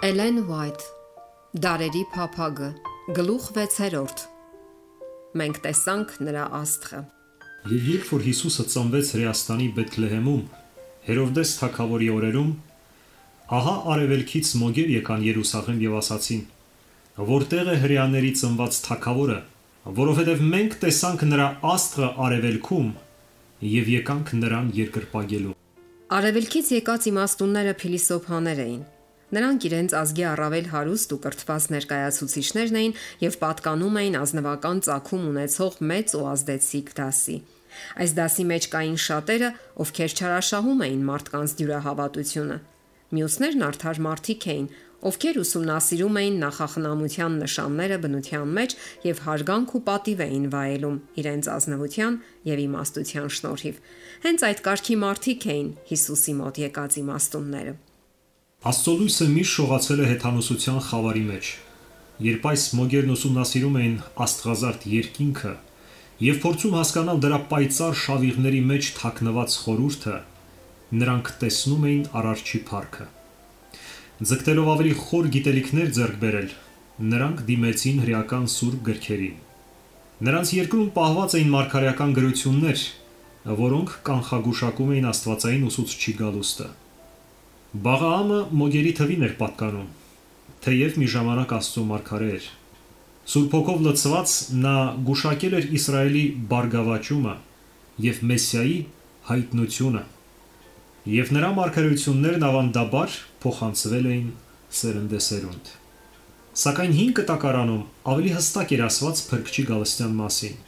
Էլեն Ուայթ Դարերի փափագը գլուխ 6 Մենք տեսանք նրա աստղը։ Եվ երբ որ Հիսուսը ծնվեց Հրեաստանի Բեթլեհեմում Հերովդես թագավորի օրերում, ահա արևելքից մոգեր եկան Երուսաղեմ եւ ասացին. որտեղ է հրեաների ծնված թագավորը, որովհետև մենք տեսանք նրա աստղը արևելքում եւ եկանք նրան երկրպագելու։ Արևելքից եկած իմաստունները փիլիսոփաներ էին։ Նրանք իրենց ազգի առավել հարուստ ու կրթված ներկայացուցիչներն էին եւ պատկանում էին ազնվական ծագում ունեցող մեծ ու ազդեցիկ դասի։ Այս դասի մեջ կային շատերը, ովքեր չարաշահում էին մարդկանց դյուրահավատությունը։ Մյուսներն արդար մարդիկ էին, ովքեր ուսումնասիրում էին նախախնամության նշանները բնության մեջ եւ հարգանք ու պատիվ էին վայելում իրենց ազնվության եւ իմաստության շնորհիվ։ Հենց այդ կարգի մարդիկ էին Հիսուսի մոտ եկած իմաստունները։ Աստծո լույսը միշտ շողացել է հեթանոսության խավարի մեջ։ Երբ այս մոգերն ուսումնասիրում էին աստղազարդ երկինքը եւ փորձում հասկանալ դրա պայծառ շավիղների մեջ թաքնված խորհուրդը, նրանք տեսնում էին Արարչի փառքը։ Ձգտելով ավելի խոր գիտելիքներ ձեռք բերել, նրանք դիմեցին հրեական սուրբ գրքերին։ Նրանց երկրում պահված էին մարգարեական գրություններ, որոնք կանխագուշակում էին աստվածային ուսուցչի գալուստը։ Բաղաամը մոգերի թվին էր պատկանում, թեև մի ժամանակ Աստծո մարգարե էր։ Սուրբ Հոգով լցված նա գուշակել էր Իսրայելի բարգավաճումը եւ Մեսիայի հայտնությունը, եւ նրա մարգարեություններն ավանդաբար փոխանցվել էին սերնդեսերունդ։ Սակայն հին կտակարանում ավելի հստակ էր ասված Փրկչի գալստյան մասին։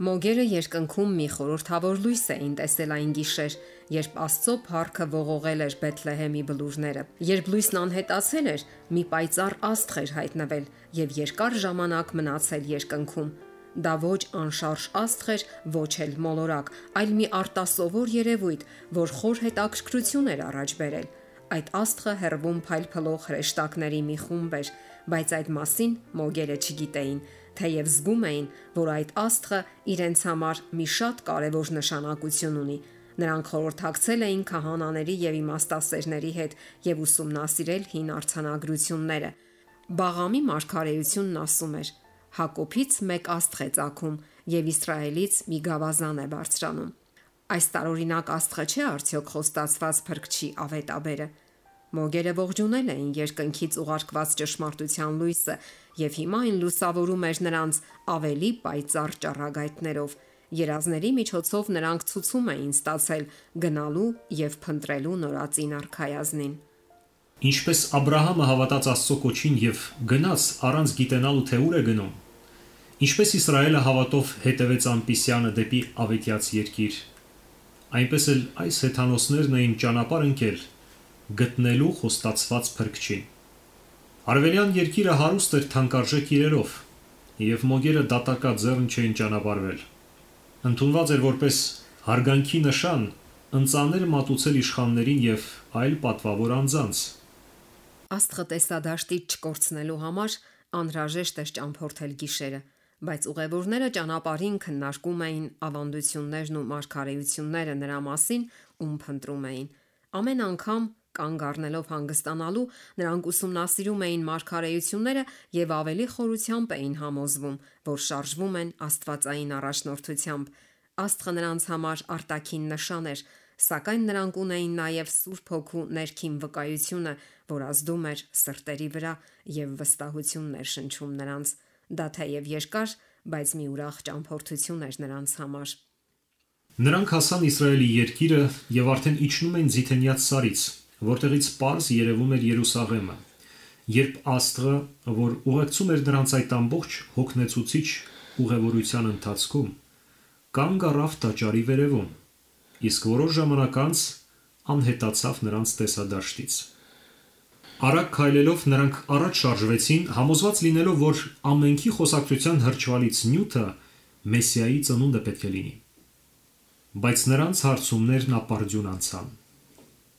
Մոգերը երկնքում մի խորհրդավոր լույս էին տեսել այն գիշեր, երբ Աստծո փառքը ողողել էր Բեթլեհեմի բլուրները։ Երբ լույսն անհետացել էր, մի պայծառ աստղ էր հայտնվել եւ երկար ժամանակ մնացել երկնքում։ Դա ոչ անշարժ աստղ էր, ոչ էլ մոլորակ, այլ մի արտասովոր երևույթ, որ խոր հետաքրքրություն էր առաջ բերել։ Այդ աստղը հեռվում փայլփլող հրեշտակների մի խումբ էր, բայց այդ մասին մոգերը չգիտեին, թեև զգում էին, որ այդ աստղը իրենց համար մի շատ կարևոր նշանակություն ունի։ Նրանք խորհրդակցել էին քահանաների եւ իմաստասերների հետ եւ ուսումնասիրել հին արձանագրությունները։ Բաղամի մարգարեությունն ասում էր. Հակոբից մեկ աստղ է ծագում եւ Իսրայելից մի գավազան է բարձրանում։ Այս տարօրինակ աստղը չէ արդյոք խոստացված Փրկչի ավետաբերը։ Մոգերը ողջունել էին երկնքից ուղարկված ճշմարտության լույսը եւ հիմա այն լուսավորում էր նրանց ավելի պայծառ ճառագայթներով։ Երազների միջոցով նրանք ցուցում էին ստացել գնալու եւ փնտրելու նորածին արքայազնին։ Ինչպես Աբրահամը հավատաց Աստծո կոչին եւ գնաց առանց գիտենալու թե ուր է գնում, ինչպես Իսրայելը հավատով հետևեց ամպիսյանը դեպի ավետյաց երկիր, այնպես էլ այս հեթանոսներն էին ճանապարհ ընկել գտնելու խոստացված Փրկչին։ Արևելյան երկիրը հարուստ էր թանկարժեք իրերով, եւ մոգերը դատակաձեռն չէին ճանապարհվել։ Ընդունված էր որպես հարգանքի նշան ընծաներ մատուցել իշխաններին եւ այլ պատվավոր անձանց։ Աստղը տեսադաշտից չկորցնելու համար անհրաժեշտ էր ճամփորդել գիշերը, բայց ուղևորները ճանապարհին քննարկում էին ավանդություններն ու մարգարեությունները նրա մասին, ում փնտրում էին։ Ամեն անգամ կանգ առնելով հանգստանալու, նրանք ուսումնասիրում էին մարգարեությունները եւ ավելի խորությամբ էին համոզվում, որ շարժվում են աստվածային առաջնորդությամբ։ Աստղը նրանց համար արտաքին նշան էր, սակայն նրանք ունեին նաեւ Սուրբ Հոգու ներքին վկայությունը, որ ազդում էր սրտերի վրա եւ վստահություն ներշնչում նրանց։ Դա թեև երկար, բայց մի ուրախ ճամփորդություն էր նրանց համար։ Նրանք հասան Իսրայելի երկիրը եւ արդեն իջնում են Ձիթենյաց սարից, որտեղից պարզ երևում էր Երուսաղեմը, երբ աստղը, որ ուղեկցում էր նրանց այդ ամբողջ հոգնեցուցիչ ուղևորության ընթացքում, կանգ առավ տաճարի վերևում, իսկ որոշ ժամանակ անց անհետացավ նրանց տեսադաշտից։ Արագ քայլելով նրանք առաջ շարժվեցին, համոզված լինելով, որ ամենքի խոսակցության հրճվալից նյութը Մեսիայի ծնունդը պետք է լինի։ Բայց նրանց հարցումներն ապարդյուն անցան։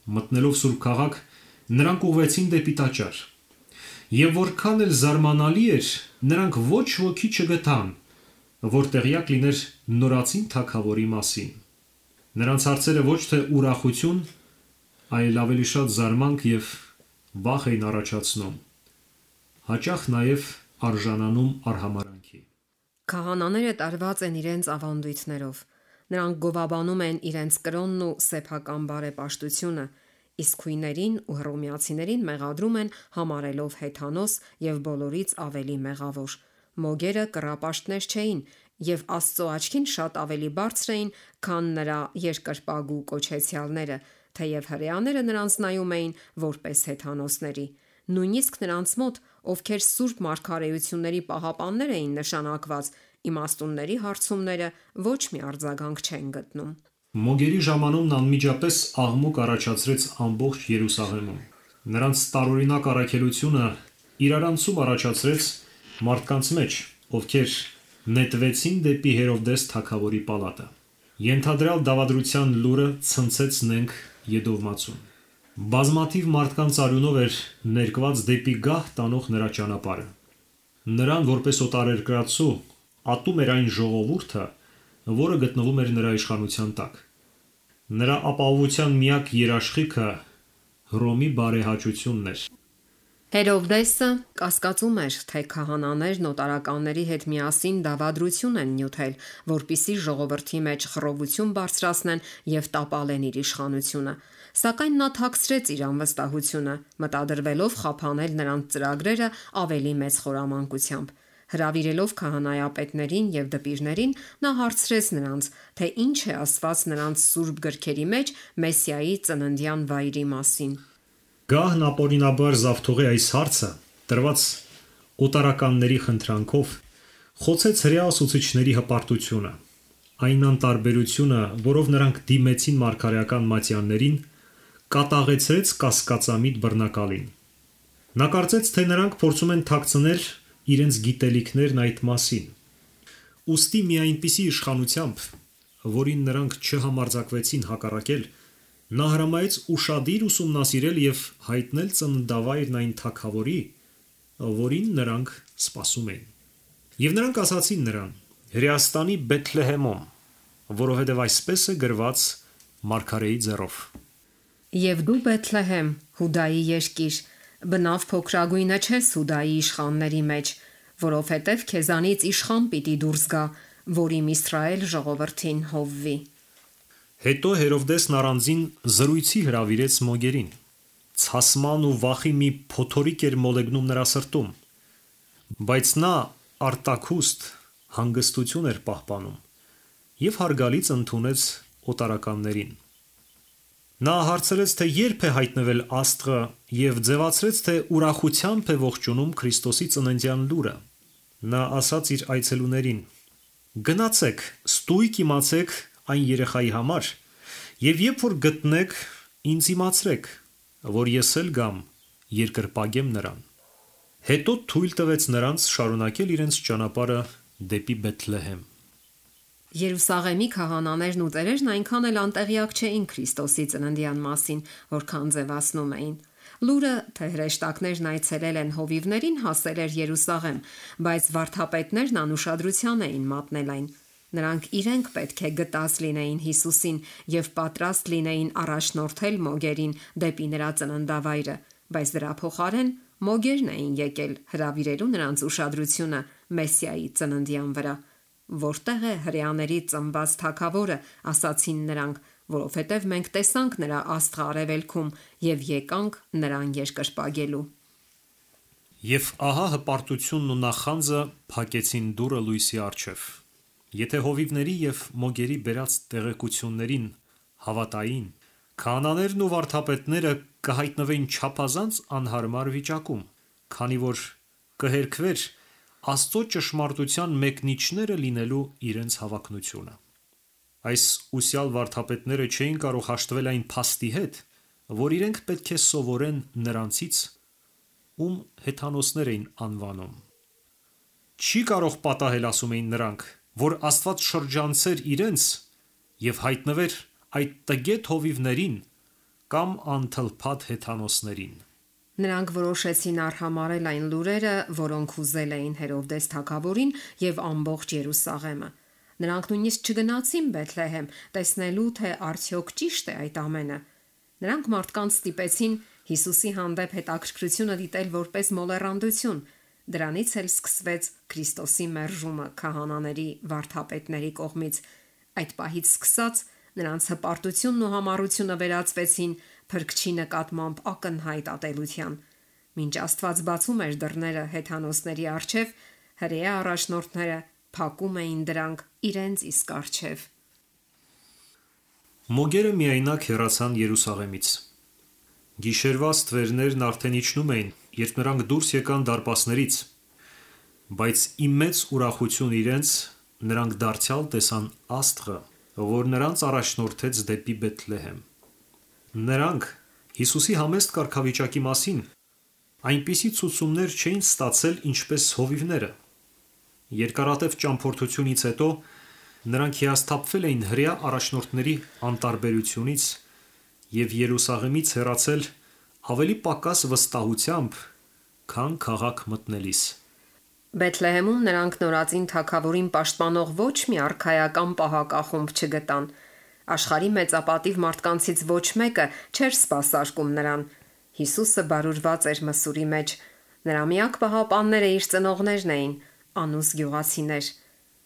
Մտնելով Սուրբ քաղաք, նրանք ուղղվեցին դեպի տաճար։ Եվ որքան էլ զարմանալի էր, նրանք ոչ ոքի չգտան, որ տեղյակ լիներ նորածին թագավորի մասին։ Նրանց հարցերը ոչ թե ուրախություն, այլ ավելի շատ զարմանք եւ վախ էին առաջացնում, հաճախ նաև արժանանում արհամարհանքի։ Քահանաները տարված են իրենց ավանդույթներով։ Նրանք գովաբանում են իրենց կրոնն ու սեփական բարեպաշտությունը, իսկ քույներին ու հռոմեացիներին մեղադրում են համարելով հեթանոս եւ բոլորից ավելի մեղավոր։ Մոգերը կռապաշտներ չէին եւ Աստծո աչքին շատ ավելի բարձր էին, քան նրա երկրպագու կոչեցյալները, թեև հրեաները նրանց նայում էին որպես հեթանոսների։ Նույնիսկ նրանց մոտ, ովքեր սուրբ մարգարեությունների պահապաններ էին նշանակված, իմաստունների հարցումները ոչ մի արձագանք չեն գտնում։ Մոգերի ժամանումն անմիջապես աղմուկ առաջացրեց ամբողջ Երուսաղեմում։ Նրանց տարօրինակ առաքելությունը իրարանցում առաջացրեց մարդկանց մեջ, ովքեր նետվեցին դեպի Հերովդես թագավորի պալատը։ Ենթադրյալ դավադրության լուրը ցնցեց նենգ Եդովմացուն։ Բազմաթիվ մարդկանց արյունով էր ներկված դեպի գահ տանող նրա ճանապարհը։ Նրան որպես օտարերկրացու ատում էր այն ժողովուրդը, որը գտնվում էր նրա իշխանության տակ։ Նրա ապահովության միակ երաշխիքը Հռոմի բարեհաճությունն էր։ Հերովդեսը կասկածում էր, թե քահանաներն օտարականների հետ միասին դավադրություն են նյութել, որպիսի ժողովրդի մեջ խռովություն բարձրացնեն եւ տապալեն իր իշխանությունը։ Սակայն նա թաքցրեց իր անվստահությունը, մտադրվելով խափանել նրանց ծրագրերը ավելի մեծ խորամանկությամբ։ Հրավիրելով քահանայապետներին եւ դպիրներին, նա հարցրեց նրանց, թե ինչ է ասված նրանց սուրբ գրքերի մեջ Մեսիայի ծննդյան վայրի մասին։ Գահն ապօրինաբար զավթողի այս հարցը, տրված օտարականների խնդրանքով, խոցեց հրեա ուսուցիչների հպարտությունը, այն անտարբերությունը, որով նրանք դիմեցին մարգարեական մատյաններին, կատաղեցրեց կասկածամիտ բռնակալին։ Նա կարծեց, թե նրանք փորձում են թաքցնել իրենց գիտելիքներն այդ մասին։ Ուստի մի այնպիսի իշխանությամբ, որին նրանք չհամարձակվեցին հակառակել, նա հրամայեց ուշադիր ուսումնասիրել եւ հայտնել ծննդավայրն այն թագավորի, որին նրանք սպասում էին։ Եվ նրանք ասացին նրան. Հրեաստանի Բեթլեհեմում, որովհետև այսպես է գրված մարգարեի ձեռով։ Եվ դու Բեթլեհեմ, Հուդայի երկիր, բնավ փոքրագույնը չես Հուդայի իշխանների մեջ, որովհետև քեզանից իշխան պիտի դուրս գա, որ իմ Իսրայել ժողովրդին հովվի։ Հետո Հերովդեսն առանձին զրույցի հրավիրեց մոգերին։ Ցասման ու վախի մի փոթորիկ էր մոլեգնում նրա սրտում, բայց նա արտաքուստ հանգստություն էր պահպանում եւ հարգալից ընդունեց օտարականներին։ Նա հարցրեց, թե երբ է հայտնվել Աստղը եւ ձևացրեց, թե ուրախությամբ է ողջունում Քրիստոսի ծննդյան լուրը։ Նա ասաց իր այցելուներին. «Գնացեք, ստույգ իմացեք այն երեխայի համար եւ երբ որ գտնեք, ինձ իմացրեք, որ ես էլ գամ երկրպագեմ նրան»։ Հետո թույլ տվեց նրանց շարունակել իրենց ճանապարհը դեպի Բեթլեհեմ։ Երուսաղեմի քահանաներն ու ծերերն այնքան էլ անտեղյակ չէին Քրիստոսի ծննդյան մասին, որքան ձևացնում էին։ Լուրը, թե հրեշտակներն այցելել են հովիվներին, հասել էր Երուսաղեմ, բայց վարդապետներն անուշադրության էին մատնել այն։ Նրանք իրենք պետք է գտած լինեին Հիսուսին եւ պատրաստ լինեին առաջնորդել մոգերին դեպի նրա ծննդավայրը, բայց դրա փոխարեն մոգերն էին եկել հրավիրելու նրանց ուշադրությունը Մեսիայի ծննդյան վրա։ Որտեղ է հրեաների ծնված թագավորը, ասացին նրանք, որովհետև մենք տեսանք նրա աստղը արևելքում եւ եկանք նրան երկրպագելու։ Եվ ահա հպարտությունն ու նախանձը փակեցին դուռը լույսի առջև։ Եթե հովիվների եւ մոգերի բերած տեղեկություններին հավատային, քահանաներն ու վարդապետները կհայտնվեին չափազանց անհարմար վիճակում, քանի որ կհերքվեր Աստծո ճշմարտության մեկնիչները լինելու իրենց հավակնությունը։ Այս ուսյալ վարդապետները չէին կարող հաշտվել այն փաստի հետ, որ իրենք պետք է սովորեն նրանցից, ում հեթանոսներ էին անվանում։ Չի կարող պատահել, ասում էին նրանք, որ Աստված շրջանցեր իրենց եւ հայտնվեր այդ տգետ հովիվներին կամ անթլփատ հեթանոսներին։ Նրանք որոշեցին արհամարել այն լուրերը, որոնք ուզել էին Հերովդես թագավորին եւ ամբողջ Երուսաղեմը։ Նրանք նույնիսկ չգնացին Բեթլեհեմ, տեսնելու թե արդյոք ճիշտ է այդ ամենը։ Նրանք մարդկանց ստիպեցին Հիսուսի հանդեպ հետաքրքրությունը դիտել որպես մոլեռանդություն։ Դրանից էլ սկսվեց Քրիստոսի մերժումը քահանաների վարդապետների կողմից։ Այդ պահից սկսած նրանց հպարտությունն ու համառությունը վերածվեցին Փրկչի նկատմամբ ակնհայտ ատելության։ Մինչ Աստված բացում էր դռները հեթանոսների առջև, հրեա առաջնորդները փակում էին դրանք իրենց իսկ առջև։ Մոգերը միայնակ հեռացան Երուսաղեմից։ Գիշերվա ստվերներն արդեն իջնում էին, երբ նրանք դուրս եկան դարպասներից, բայց ի մեծ ուրախություն իրենց նրանք դարձյալ տեսան Աստղը, որ նրանց առաջնորդեց դեպի Բեթլեհեմ։ Նրանք Հիսուսի համեստ կարգավիճակի մասին այնպիսի ցուցումներ չէին ստացել, ինչպես հովիվները։ Երկարատև ճամփորդությունից հետո նրանք հիասթափվել էին հրեա առաջնորդների անտարբերությունից և Երուսաղեմից հեռացել ավելի պակաս վստահությամբ, քան քաղաք մտնելիս։ Բեթլեհեմում նրանք նորածին թագավորին պաշտպանող ոչ մի արքայական պահակախումբ չգտան։ Աշխարհի մեծապատիվ մարդկանցից ոչ մեկը չէր սպասարկում նրան։ Հիսուսը բարուրված էր մսուրի մեջ։ Նրա միակ պահապանները իր ծնողներն էին, անուս գյուղացիներ։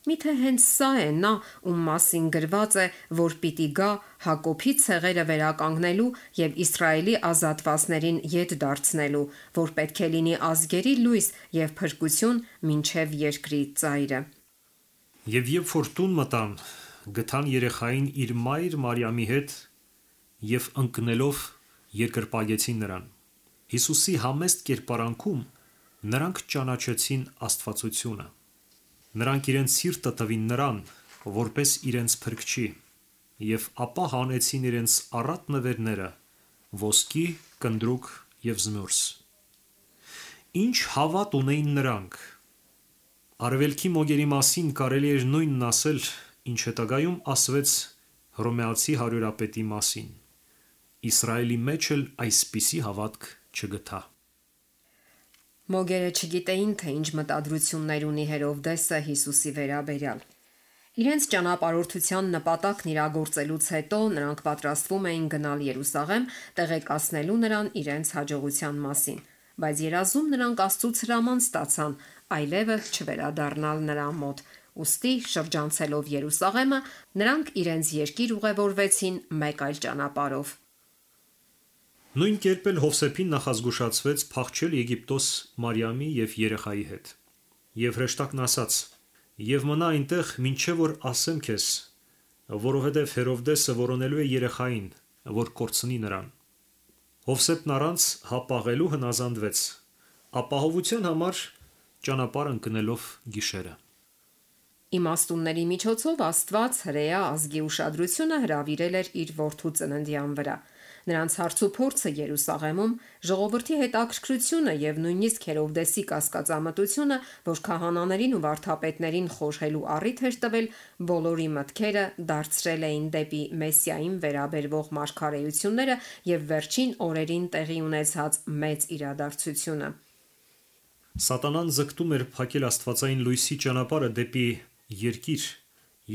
Միթե հենց սա է նա, ում մասին գրված է, որ պիտի գա Հակոբի ցեղերը վերականգնելու և Իսրայելի ազատվածներին ետ դարձնելու, որ պետք է լինի ազգերի լույս և փրկություն մինչև երկրի ծայրը։ Եվ երբ որ տուն մտան, գտան երեխային իր մայր Մարիամի հետ և ընկնելով երկրպագեցին նրան։ Հիսուսի համեստ կերպարանքում նրանք ճանաչեցին աստվածությունը։ Նրանք իրենց սիրտը տվին նրան, որպես իրենց փրկչի, և ապա հանեցին իրենց առատ նվերները՝ ոսկի, կնդրուկ և զմուրս։ Ինչ հավատ ունեին նրանք։ Արևելքի մոգերի մասին կարելի էր նույնն ասել, ինչ հետագայում ասվեց հռոմեացի հարյուրապետի մասին։ Իսրայելի մեջ էլ այսպիսի հավատք չգտա։ Մոգերը չգիտեին, թե ինչ մտադրություններ ունի Հերովդեսը Հիսուսի վերաբերյալ։ Իրենց ճանապարհորդության նպատակն իրագործելուց հետո նրանք պատրաստվում էին գնալ Երուսաղեմ, տեղեկացնելու նրան իրենց հաջողության մասին, բայց երազում նրանք Աստծուց հրաման ստացան այլևս չվերադառնալ նրա մոտ։ Ուստի շրջանցելով Երուսաղեմը, նրանք իրենց երկիր ուղևորվեցին մեկ այլ ճանապարհով։ Նույն կերպ էլ Հովսեփին նախազգուշացվեց փախչել Եգիպտոս Մարիամի և երեխայի հետ։ Եվ հրեշտակն ասաց. «Եվ մնա այնտեղ, մինչև որ ասեմ քեզ, որովհետև Հերովդեսը որոնելու է երեխային, որ կորցնի նրան»։ Հովսեփն առանց հապաղելու հնազանդվեց, ապահովության համար ճանապարհ ընկնելով գիշերը։ Իմաստունների միջոցով Աստված հրեա ազգի ուշադրությունը հրավիրել էր իր որդու ծննդյան վրա։ Նրանց հարցուփորձը Երուսաղեմում, ժողովրդի հետաքրքրությունը և նույնիսկ Հերովդեսի կասկածամտությունը, որ քահանաներին ու վարդապետներին խորհելու առիթ էր տվել, բոլորի մտքերը դարձրել էին դեպի Մեսիային վերաբերվող մարգարեությունները և վերջին օրերին տեղի ունեցած մեծ իրադարձությունը։ Սատանան ձգտում էր փակել աստվածային լույսի ճանապարհը դեպի երկիր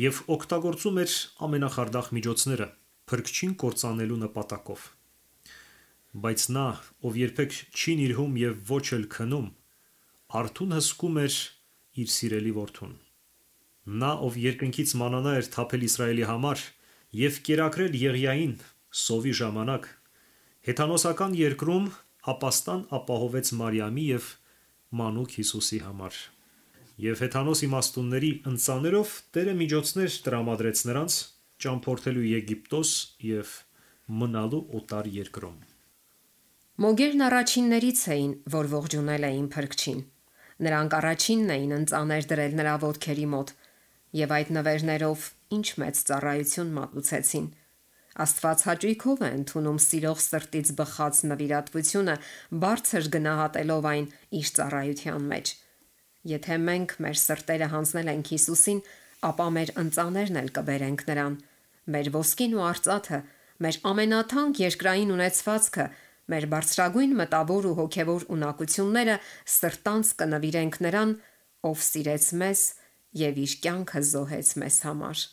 և օգտագործում էր ամենախարդախ միջոցները փրկչին կործանելու նպատակով։ Բայց նա, ով երբեք չի նիրհում և ոչ էլ քնում, արթուն հսկում էր իր սիրելի որդուն։ Նա, ով երկնքից մանանա էր թափել Իսրայելի համար և կերակրել Եղիային սովի ժամանակ, հեթանոսական երկրում ապաստան ապահովեց Մարիամի և մանուկ Հիսուսի համար։ Եվ հեթանոս իմաստունների ընծաներով Տերը միջոցներ տրամադրեց նրանց ճամփորդելու Եգիպտոս և մնալու օտար երկրում։ Մոգերն առաջիններից էին, որ ողջունել էին Փրկչին։ Նրանք առաջինն էին ընծաներ դրել նրա ոտքերի մոտ և այդ նվերներով ինչ մեծ ծառայություն մատուցեցին։ Աստված հաճույքով է ընդունում սիրող սրտից բխած նվիրատվությունը, բարձր գնահատելով այն իր ծառայության մեջ։ Եթե մենք մեր սրտերը հանձնել ենք Հիսուսին, ապա մեր ընծաներն էլ կբերենք նրան։ Մեր ոսկին ու արծաթը, մեր ամենաթանկ երկրային ունեցվածքը, մեր բարձրագույն մտավոր ու հոգևոր ունակությունները սրտանց կնվիրենք նրան, ով սիրեց մեզ և իր կյանքը զոհեց մեզ համար։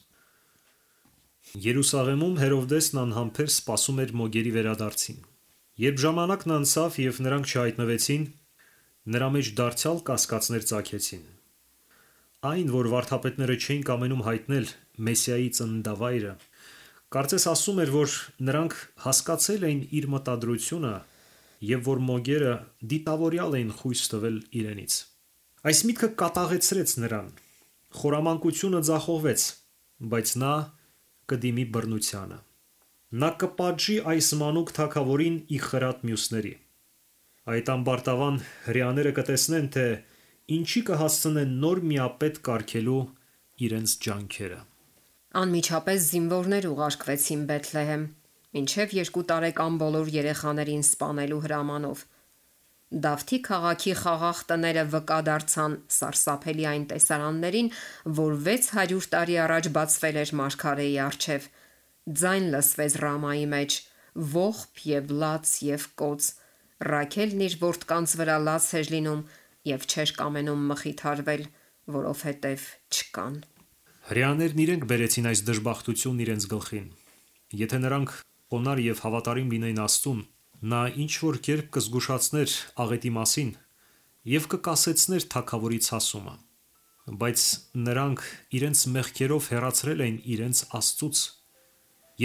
Երուսաղեմում Հերովդեսն անհամբեր սպասում էր մոգերի վերադարձին։ Երբ ժամանակն անցավ եւ նրանք չհայտնվեցին, նրա մեջ դարձյալ կասկածներ ծագեցին։ Այն, որ վարդապետները չէին կամենում հայտնել Մեսիայի ծննդավայրը, կարծես ասում էր, որ նրանք հասկացել էին իր մտադրությունը եւ որ մոգերը դիտավորյալ էին խույս տվել իրենից։ Այս միտքը կատաղեցրեց նրան։ Խորամանկությունը ձախողվեց, բայց նա կդիմի բռնությանը։ Նա կպատժի այս մանուկ թագավորին ի խրատ մյուսների։ Այդ ամբարտավան հրեաները կտեսնեն, թե ինչի կհասցնեն նոր միապետ կարգելու իրենց ջանքերը։ Անմիջապես զինվորներ ուղարկվեցին Բեթլեհեմ, մինչև 2 տարեկան բոլոր երեխաներին սպանելու հրամանով։ Դավթի քաղաքի խաղաղ տները վկա դարձան սարսափելի այն տեսարաններին, որ 600 տարի առաջ բացվել էր մարգարեի առջև։ Ձայն լսվեց Ռամայի մեջ, ողբ եւ լաց եւ կոծ։ Ռաքելն իր որդկանց վրա լաց էր լինում եւ չէր կամենում մխիթարվել, որովհետեւ չկան։ Հրեաներն իրենք բերեցին այս դժբախտությունն իրենց գլխին։ Եթե նրանք խոնարհ եւ հավատարիմ լինեին Աստծուն, նա ինչ որ կերպ կզգուշացներ աղետի մասին եւ կկասեցներ թագավորի ցասումը։ Բայց նրանք իրենց մեղքերով հեռացրել էին իրենց Աստծուց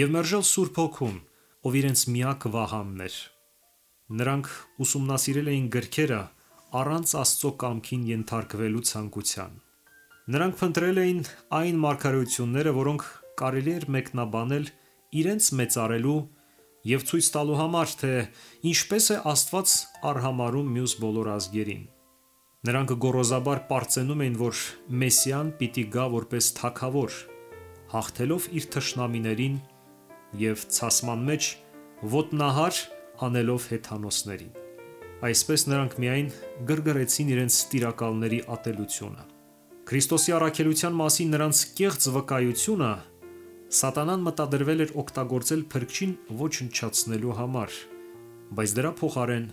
եւ մերժել Սուրբ Հոգուն, ով իրենց միակ վահանն էր։ Նրանք ուսումնասիրել էին գրքերը առանց Աստծո կամքին ենթարկվելու ցանկության։ Նրանք փնտրել էին այն մարգարեությունները, որոնք կարելի էր մեկնաբանել իրենց մեծարելու եւ ցույց տալու համար, թե ինչպես է Աստված արհամարհում մյուս բոլոր ազգերին։ Նրանք գոռոզաբար պարծենում էին, որ Մեսիան պիտի գա որպես թագավոր, հաղթելով իր թշնամիներին եւ ցասման մեջ ոտնահար անելով հեթանոսներին։ Այսպես նրանք միայն գրգռեցին իրենց տիրակալների ատելությունը։ Քրիստոսի առաքելության մասին նրանց կեղծ վկայությունը Սատանան մտադրվել էր օգտագործել փրկչին ոչնչացնելու համար, բայց դրա փոխարեն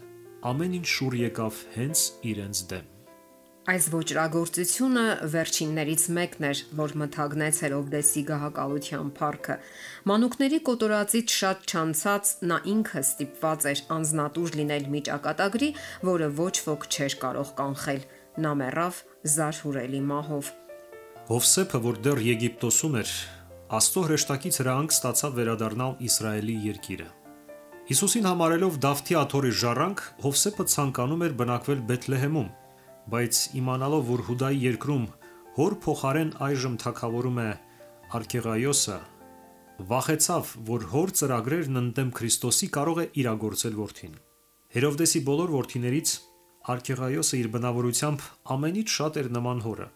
ամեն ինչ շուռ եկավ հենց իրենց դեմ։ Այս ոճրագործությունը վերջիններից մեկն էր, որ մթագնեց Հերովդեսի գահակալության փառքը։ Մանուկների կոտորածից շատ չանցած նա ինքը ստիպված էր անznատուր լինել մի ճակատագրի, որը ոչ ոք չէր կարող կանխել։ Նա մեռավ զարհուրելի մահով։ Հովսեփը, որ դեռ Եգիպտոսում էր, Աստծո հրեշտակից հրահանգ ստացավ վերադառնալ Իսրայելի երկիրը։ Հիսուսին համարելով Դավթի աթոռի ժառանգ, Հովսեփը ցանկանում էր բնակվել Բեթլեհեմում, բայց իմանալով, որ Հուդայի երկրում հոր փոխարեն այժմ թագավորում է Արքեղայոսը, վախեցավ, որ հոր ծրագրերն ընդդեմ Քրիստոսի կարող է իրագործել որդին։ Հերովդեսի բոլոր որդիներից Արքեղայոսը իր բնավորությամբ ամենից շատ էր նման հորը։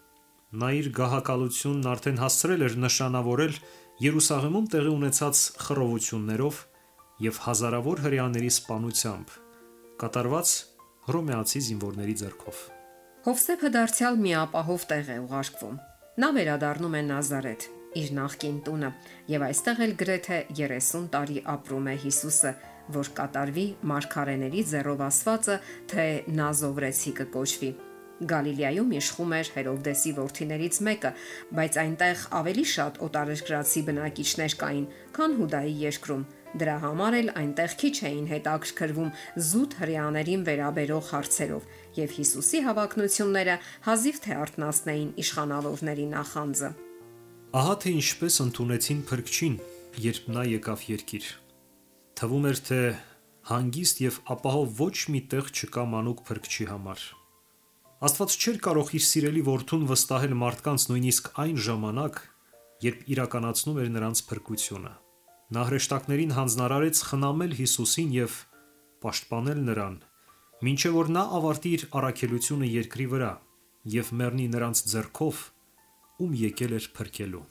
Նա իր գահակալությունն արդեն հասցրել էր նշանավորել Երուսաղեմում տեղի ունեցած խռովություններով եւ հազարավոր հրեաների սպանությամբ, կատարված հռոմեացի զինվորների ձեռքով։ Հովսեփը դարձյալ մի ապահով տեղ է ուղարկվում։ Նա վերադառնում է Նազարեթ, իր նախկին տունը, եւ այստեղ էլ գրեթե 30 տարի ապրում է Հիսուսը, որ կատարվի մարգարեների ձեռով ասվածը, թե Նազովրեցի կկոչվի։ Գալիլեայում իշխում էր Հերովդեսի որդիներից մեկը, բայց այնտեղ ավելի շատ օտարերկրացի բնակիչներ կային, քան Հուդայի երկրում։ Դրա համար էլ այնտեղ քիչ էին հետաքրքրվում զուտ հրեաներին վերաբերող հարցերով, եւ Հիսուսի հավակնությունները հազիվ թե արթնացնեին իշխանավորների նախանձը։ Ահա թե ինչպես ընդունեցին փրկչին, երբ նա եկավ երկիր։ Թվում էր, թե հանգիստ եւ ապահով ոչ մի տեղ չկա մանուկ փրկչի համար։ Աստված չէր կարող իր սիրելի որդուն վստահել մարդկանց նույնիսկ այն ժամանակ, երբ իրականացնում էր նրանց փրկությունը։ Նա հրեշտակներին հանձնարարեց խնամել Հիսուսին եւ պաշտպանել նրան, մինչեւ որ նա ավարտի իր առաքելությունը երկրի վրա եւ մեռնի նրանց ձեռքով, ում եկել էր փրկելու։